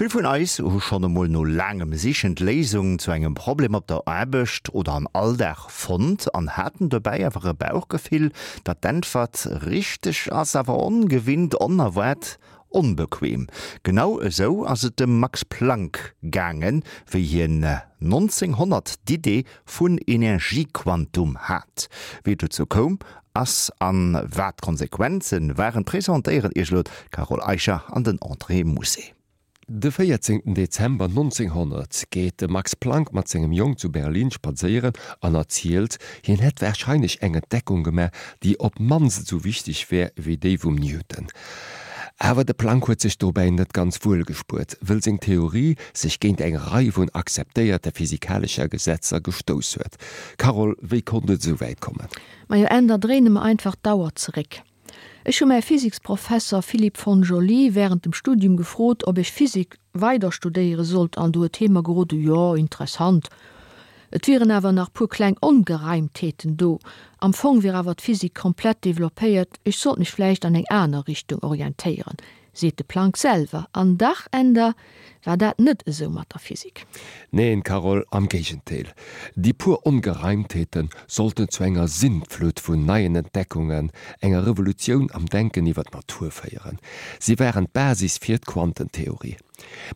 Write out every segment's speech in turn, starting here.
Vill vun eis hu schonn emol no laangem Sichen d'Léisung zu engem Problem op der Aarbecht oder am Alldag fonnt an haten dobäi awer e Bauchgefill, datt d'Äntwert richteg ass, awer ongewinnt, onerwaart, onbequem. Genau esou ass et dem Max Planck gaangen, wéi hien 1900 d'Idee vun Energiequantum hat. Wéi et dozou koum ass an wat d'Konsequenzen waren, presentéieren Iech elo d'Carole Eicher an den André Mousset. De 14 Dezember 1900 geet de Max Planck mat sengem Jong zu Berlin spadséieren an erzielt, hien hätt warscheinlech eng Entdeckung gemaach, déi op d'mannst esou wichteg wär wéi déi vum Newton. Awer de Planck huet sech dobäi net ganz wuel gespuert, wëll seng Theorie sech géint eng Rei vun akzeptéierte physikalescher Gesetzer gestouss huet. Carole, wéi konnt et esou wäit kommen? Majo, Änder, dréine mer einfach d'Auer zeréck. Ech hu mäi Physiksprofesser Philippe von Joly während dem Studium gefrot, ob ech Physik weider studéiere sollt an du huet hee mer gerode, jo, interessant, et wieren awer nach puer kleng Ongereimtheeten do, am Fong wier awer d'Physik komplett developpéiert, ech sollt mech vläicht an eng aner Richtung orientéieren. Seet de Planck selwer. An dach, Änder, war dat net esou mat der Physik. Neen, Carole, am Géigendeel. Déi puer Ongereimtheete sollten zu enger Sintflut vun neien Entdeckungen, enger Revolutioun am Denken iwwer d'Natur féieren. Si waren d'Basis fir d'Quantentheorie.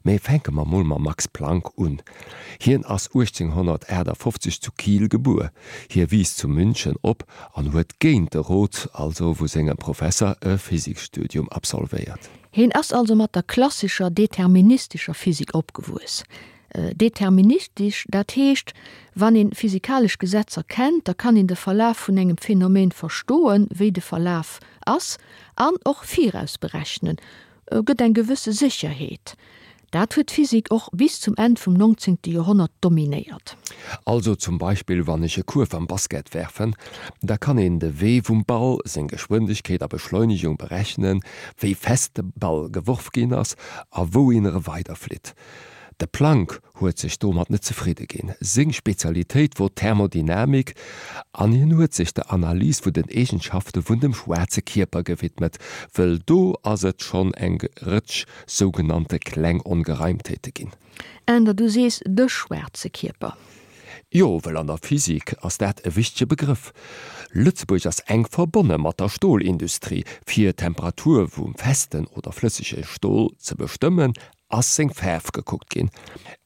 Mä fänke mer mol mam Max Planck un. Hien ass 1858 zu Kiel gebuer. Hie wiisst zu München op an huet géint de Rot also vu sengem Professer e Physikstudium absolvéiert. Hien ass also mat der klassescher deterministescher Physik opgewuess. Deterministesch, dat heescht, wann een physikalesch Gesetzer kennt, da kann een de Verlaf vun engem Phänomen verstoen, wéi de Verlaf ass, an och virausberechnen, gëtt eng gewësse Sécherheet. Dat huet d'Physik och bis zum Enn vum 19. Joerhonnert dominéiert. Also zum Beispill wann ech e Kuerf am Basket werfen, da kann een de Wee vum Ball, seng Geschwindegkeet a Beschleunegung berechnen, wéi fest de Ball geworf ginn ass a wouhin e weiderflitt. De Planck huet sech domat net zefridde ginn. Seng Spezialitéit wor d'Thermodynamik an hien huet sech der Analys vun den Eegenschafte vun dem schwaarze Kierper gewidmet, wëll do ass et schonn eng Rëtsch sougenannte kleng Ongereimtheete ginn. Änder, du sees de schwaarze Kierper. Jo, wëll an der Physik ass dat e wichtege Begrëff. Lëtzebuerg ass enk verbonne mat der Stolindustrie. Fir d'Temperatur vum festen oder flëssege Stol ze bestëmmen, ass seng Faarf gekuckt ginn.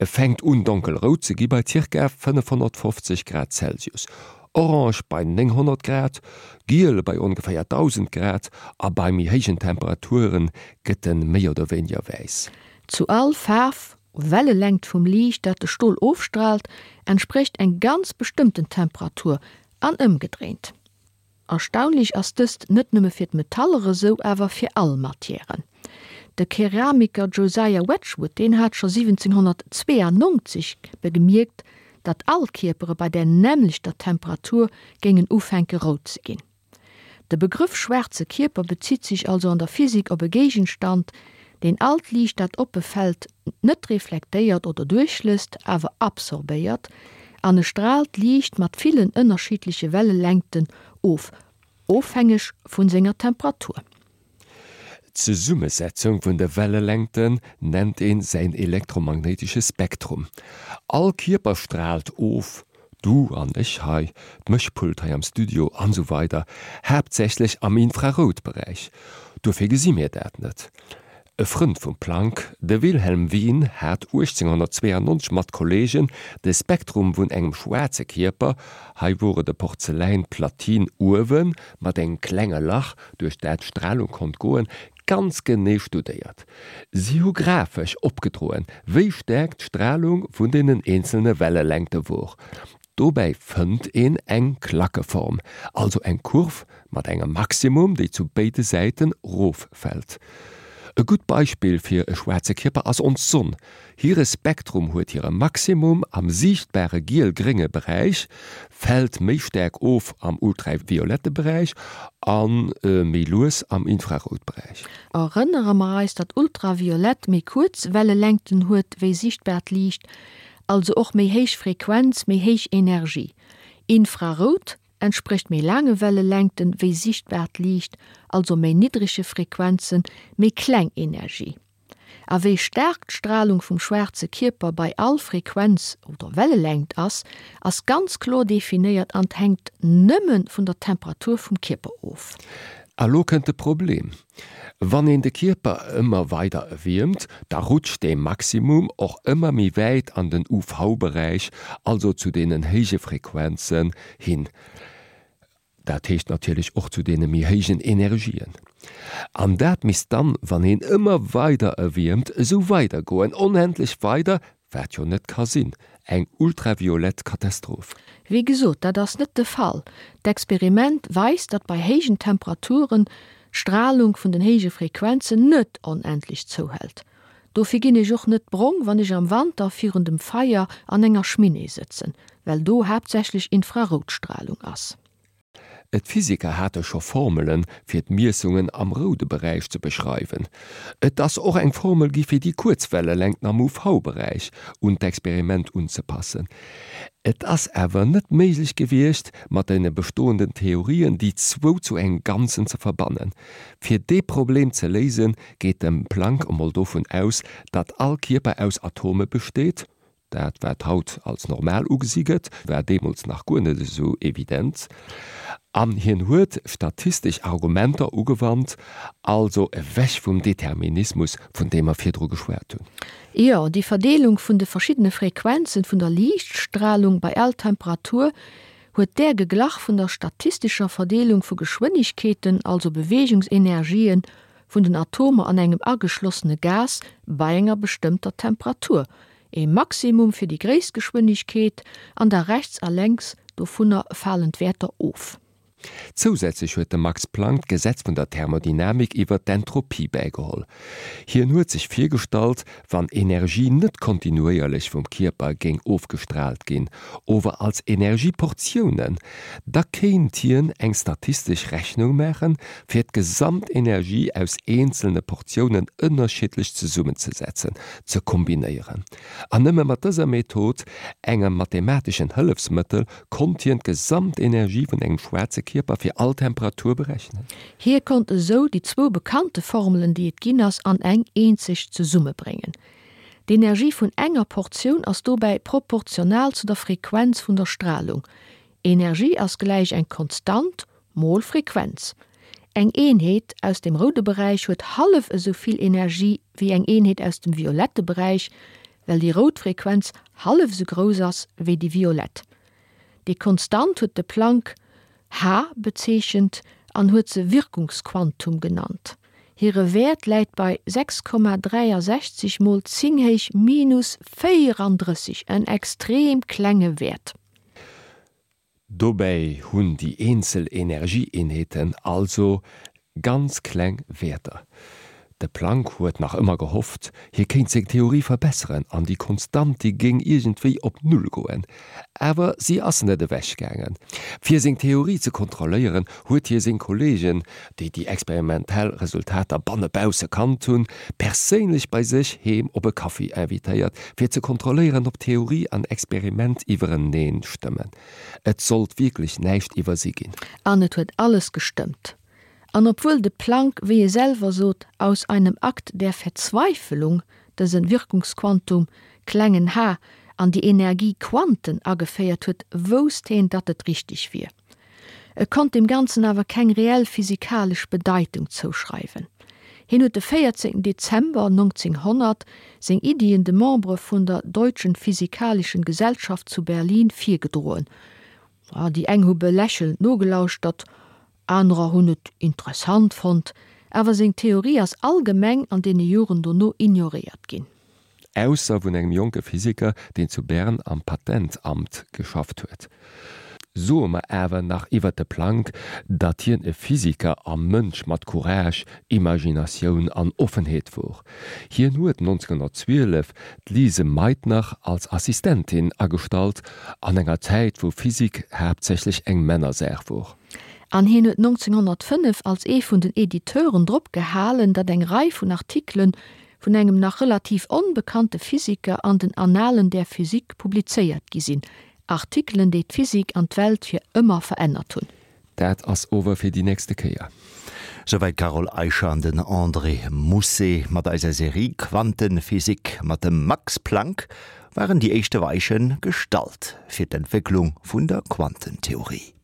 E fänkt un donkelrout ze gi bei zirka 550 Grad Celsius, orange bei 900 Grad, giel bei ongeféier 1000 Grad a bei méi héijen Temperature gëtt en méi oder wéiniger wäiss. Zu all Faarf, Wellelängt vum Liicht dat de Stol ofstraalt, entsprécht eng ganz bestëmmten Temperatur an ëmgedréint. Erstaunlech ass dëst net nëmme fir d'Metaller esou, awer fir all Matièren. De Keramiker Josiah Wedgwood, deen hat scho 1792 begemierkt, datt all Kierpere bei där nämmlechter Temperatur géingen ufänke rout ze ginn. De Begrëff schwaarze Kierper bezitt sech also an der Physik op e Géigenstand, deen all d'Liicht dat op e fält net reflektéiert oder duerchlësst, awer absorbéiert, an e straalt Liicht mat villen ënnerschiddleche Wellelängten of, ofhängeg vu senger Temperatur. D'Zesummesetzung vun de Wellelängten nennt een säin elektromagnéitesche Spektrum. All Kierper straalt of, du an ech hei, d'Mëschpult hei am Studio an esou weider haaptsächlech am Infraroutberäich. Dofir gesi mir dat net. E Frënd vum Planck, de Wilhelm Wien, hat 1892 mat Kolleegen de Spektrum vun engem schwaarze Kierper, hei wor et e Porzeläin-Platin uewe mat engem klenge Lach, duerch dat d'Stralung konnt goen, ganz genee studéiert. Si hu grafesch opgedroen, wéi staark d'Stralung vun deenen eenzelne Wellelängte wor. Dobäi fënnt een eng Klackeform, also eng Kurv mat engem Maximum, déi zu béide Säiten roffält. E gutt Beispill fir e schwaarze Kierper ass ons Sonn. Hire Spektrum huet hire Maximum am siichtbare giel-grénge Beräich, fält méi staark of am ultraviolette Beräich a méi lues am Infraroutberäich. Erënnere mer eis, datt Ultraviolett méi kuerz Wellelängten huet wéi siichtbaart Liicht, also och méi héich Frequenz, méi héich Energie. Infrarout entsprécht méi laange Wellelängten wéi sichtbaart Liicht, also méi niddrege Frequenzen, méi kleng Energie. A wéi staark d'Stralung vum schwaarze Kierper bei all Frequenz oder Wellelängt ass, ass ganz kloer definéiert an hänkt nëmme vun der Temperatur vum Kierper of. A lo kënnt de Problem, Wann een de Kierper ëmmer weider erwiermt, da rutscht dee Maximum och ëmmer méi wäit an den UV-Beräich, also zu deenen héije Frequenzen hin. Dat heescht natierlech och zu deene méi héijen Energien. An dat misst dann, wann een ëmmer weider erwiermt, esou weidergoen, onendlech weider, wat jo net ka sinn, eng ultraviolett Katastroph. Wéi gesot, dat ass net de Fall. D'Experiment weist, datt bei héijen Temperaturen d'Stralung vun den héije Frequenzen net onendlech zouhält. Dofir ginn ech och net brong, wann ech am Wanter virun dem Feier an enger Schminee sëtzen, well do haaptsächlech Infraroutstralung ass. D'Physiker hate scho Formelen, fir d'Miessungen am roude Beräich ze beschreiwen. Et ass och eng Formel gi fir déi kuerz Wellelängt am UV-Beräich un d'Experiment unzepassen. Et ass awer net méiglech gewiescht, mat deene bestoenden Theorien déi zwou zu engem Ganzen ze verbannen. Fir dee Problem ze léisen, geet de Planck emol dovun aus, datt all Kierper aus Atome besteet, dat wat haut als normal ugesi gëtt, war deemools nach guer net esou evident, an hien huet statistesch Argumenter ugewannt, also ewech vum Determinismus, vun deem mer virdru geschwat hunn. Jo, déi Verdeelung vun de verschiddene Frequenzen vun der Liichtstralung bei all Temperatur huet där geglach vun der statistescher Verdeelung vu Geschwënnegkeeten, also Beweegungsenergien, vun den Atomer an engem ageschlossene Gas bei enger bestëmmter Temperatur, ee Maximum fir déi gréisst Geschwënnegkeet, an da rechts a lenks dovunner falen d'Wäerter of. Zousätzlech huet de Max Planck d'Gesetz vun der Thermodynamik iwwer d'Entropie bäigeholl. Hien huet sech virgestallt, wann Energie net kontinuéierlech vum Kierper géing ofgestraalt ginn, ower als Energieportiounen, da kéint hien eng statistesch Rechnung maachen, fir d'Gesamtenergie aus eenzelne Portiounen ënnerschiddlech zesummenzesetzen, ze kombinéieren. An nëmme mat dëser Method, engem mathemateschen Hëllefsmëttel, konnt hien d'Gesamtenergie vun engem schwaarze Kierper fir all Temperatur berechnen. Hie konnt esou déi zwou bekannte Formelen, déi et ginn ass, an eng eenzeg zesummebréngen. D'Energie vun enger Portioun ass dobäi proportional zu der Frequenz vun der Stralung. Energie ass gläich eng Konstant mol Frequenz. Eng Eenheet aus dem roude Beräich huet hallef esou vill Energie wéi eng Eenheet aus dem violette Beräich, well déi rout Frequenz hallef esou grouss ass wéi déi violett. Déi Konstant huet de Planck h bezeechent an huet se Wirkungsquantum genannt. Hire Wäert läit bei 6,63 mol 10 héich minus 34, en extrem klenge Wäert. Dobäi hunn déi eenzel Energieeenheeten also ganz kleng Wäerter. De Planck huet nach ëmmer gehofft, hie kéint seng Theorie verbesseren an déi Konstant déi géing iergendwéi op Null goen. Awer si ass net ewech gaangen. Fir seng Theorie ze kontrolléieren, huet hie seng Kolleegen, déi déi experimentell Resultater bannebausse kannt hunn, perséinlech bei sech heem op e Kaffi invitéiert, fir ze kontrolléieren, ob Theorie an Experiment iwwereneen stëmmen. Et sollt wierklech näischt iwwersi ginn. An et huet alles gestëmmt. An obwuel de Planck, wéi e selwer sot, aus einem Akt der Verzweifelung dësen Wirkungsquantum, klengen h, an déi Energiequanten ageféiert huet, wousst heen, datt et richteg wier. E konnt deem Ganzen awer keng reell physikalesch Bedeitung zouschreiwen. Hien huet de 14 Dezember 1900 seng Iddien de Membere vun der Deutschen Physikalischen Gesellschaft zu Berlin virgedroen. Déi eng hu belächelnd nogelauschtert, anerer hunn et interessant fonnt, awer seng Theorie ass allgemeng an deene Joren dono ignoréiert ginn. Ausser vun engem jonke Physiker, deen zu Bern am Patentamt geschafft huet. Soe mer awer nach iwwert de Planck, datt hien e Physiker a Mënsch mat Courage, Imaginatioun an Offenheet wor. Hien huet 1912 d'Lise Meitner als Assistentin agestallt, an enger Zäit wou Physik haaptsächlech eng Männersaach wor. An hien huet 1905 als ee vun den Editeuren drop gehalen, datt eng Rei vun Artikelen vun engem nach relativ onbekannte Physiker an den Annalen der Physik publizéiert gi sinn, Artikelen, déi d'Physik an d'Welt fir ëmmer verännert hunn. Dat ass ower fir déi nächste Kéier. Souwäit d'Carole Eicher an den André Mousset mat eiser Serie Quantenphysik. Mat dem Max Planck waren déi éischte Weiche gestallt fir d'Entwécklung vun der Quantentheorie.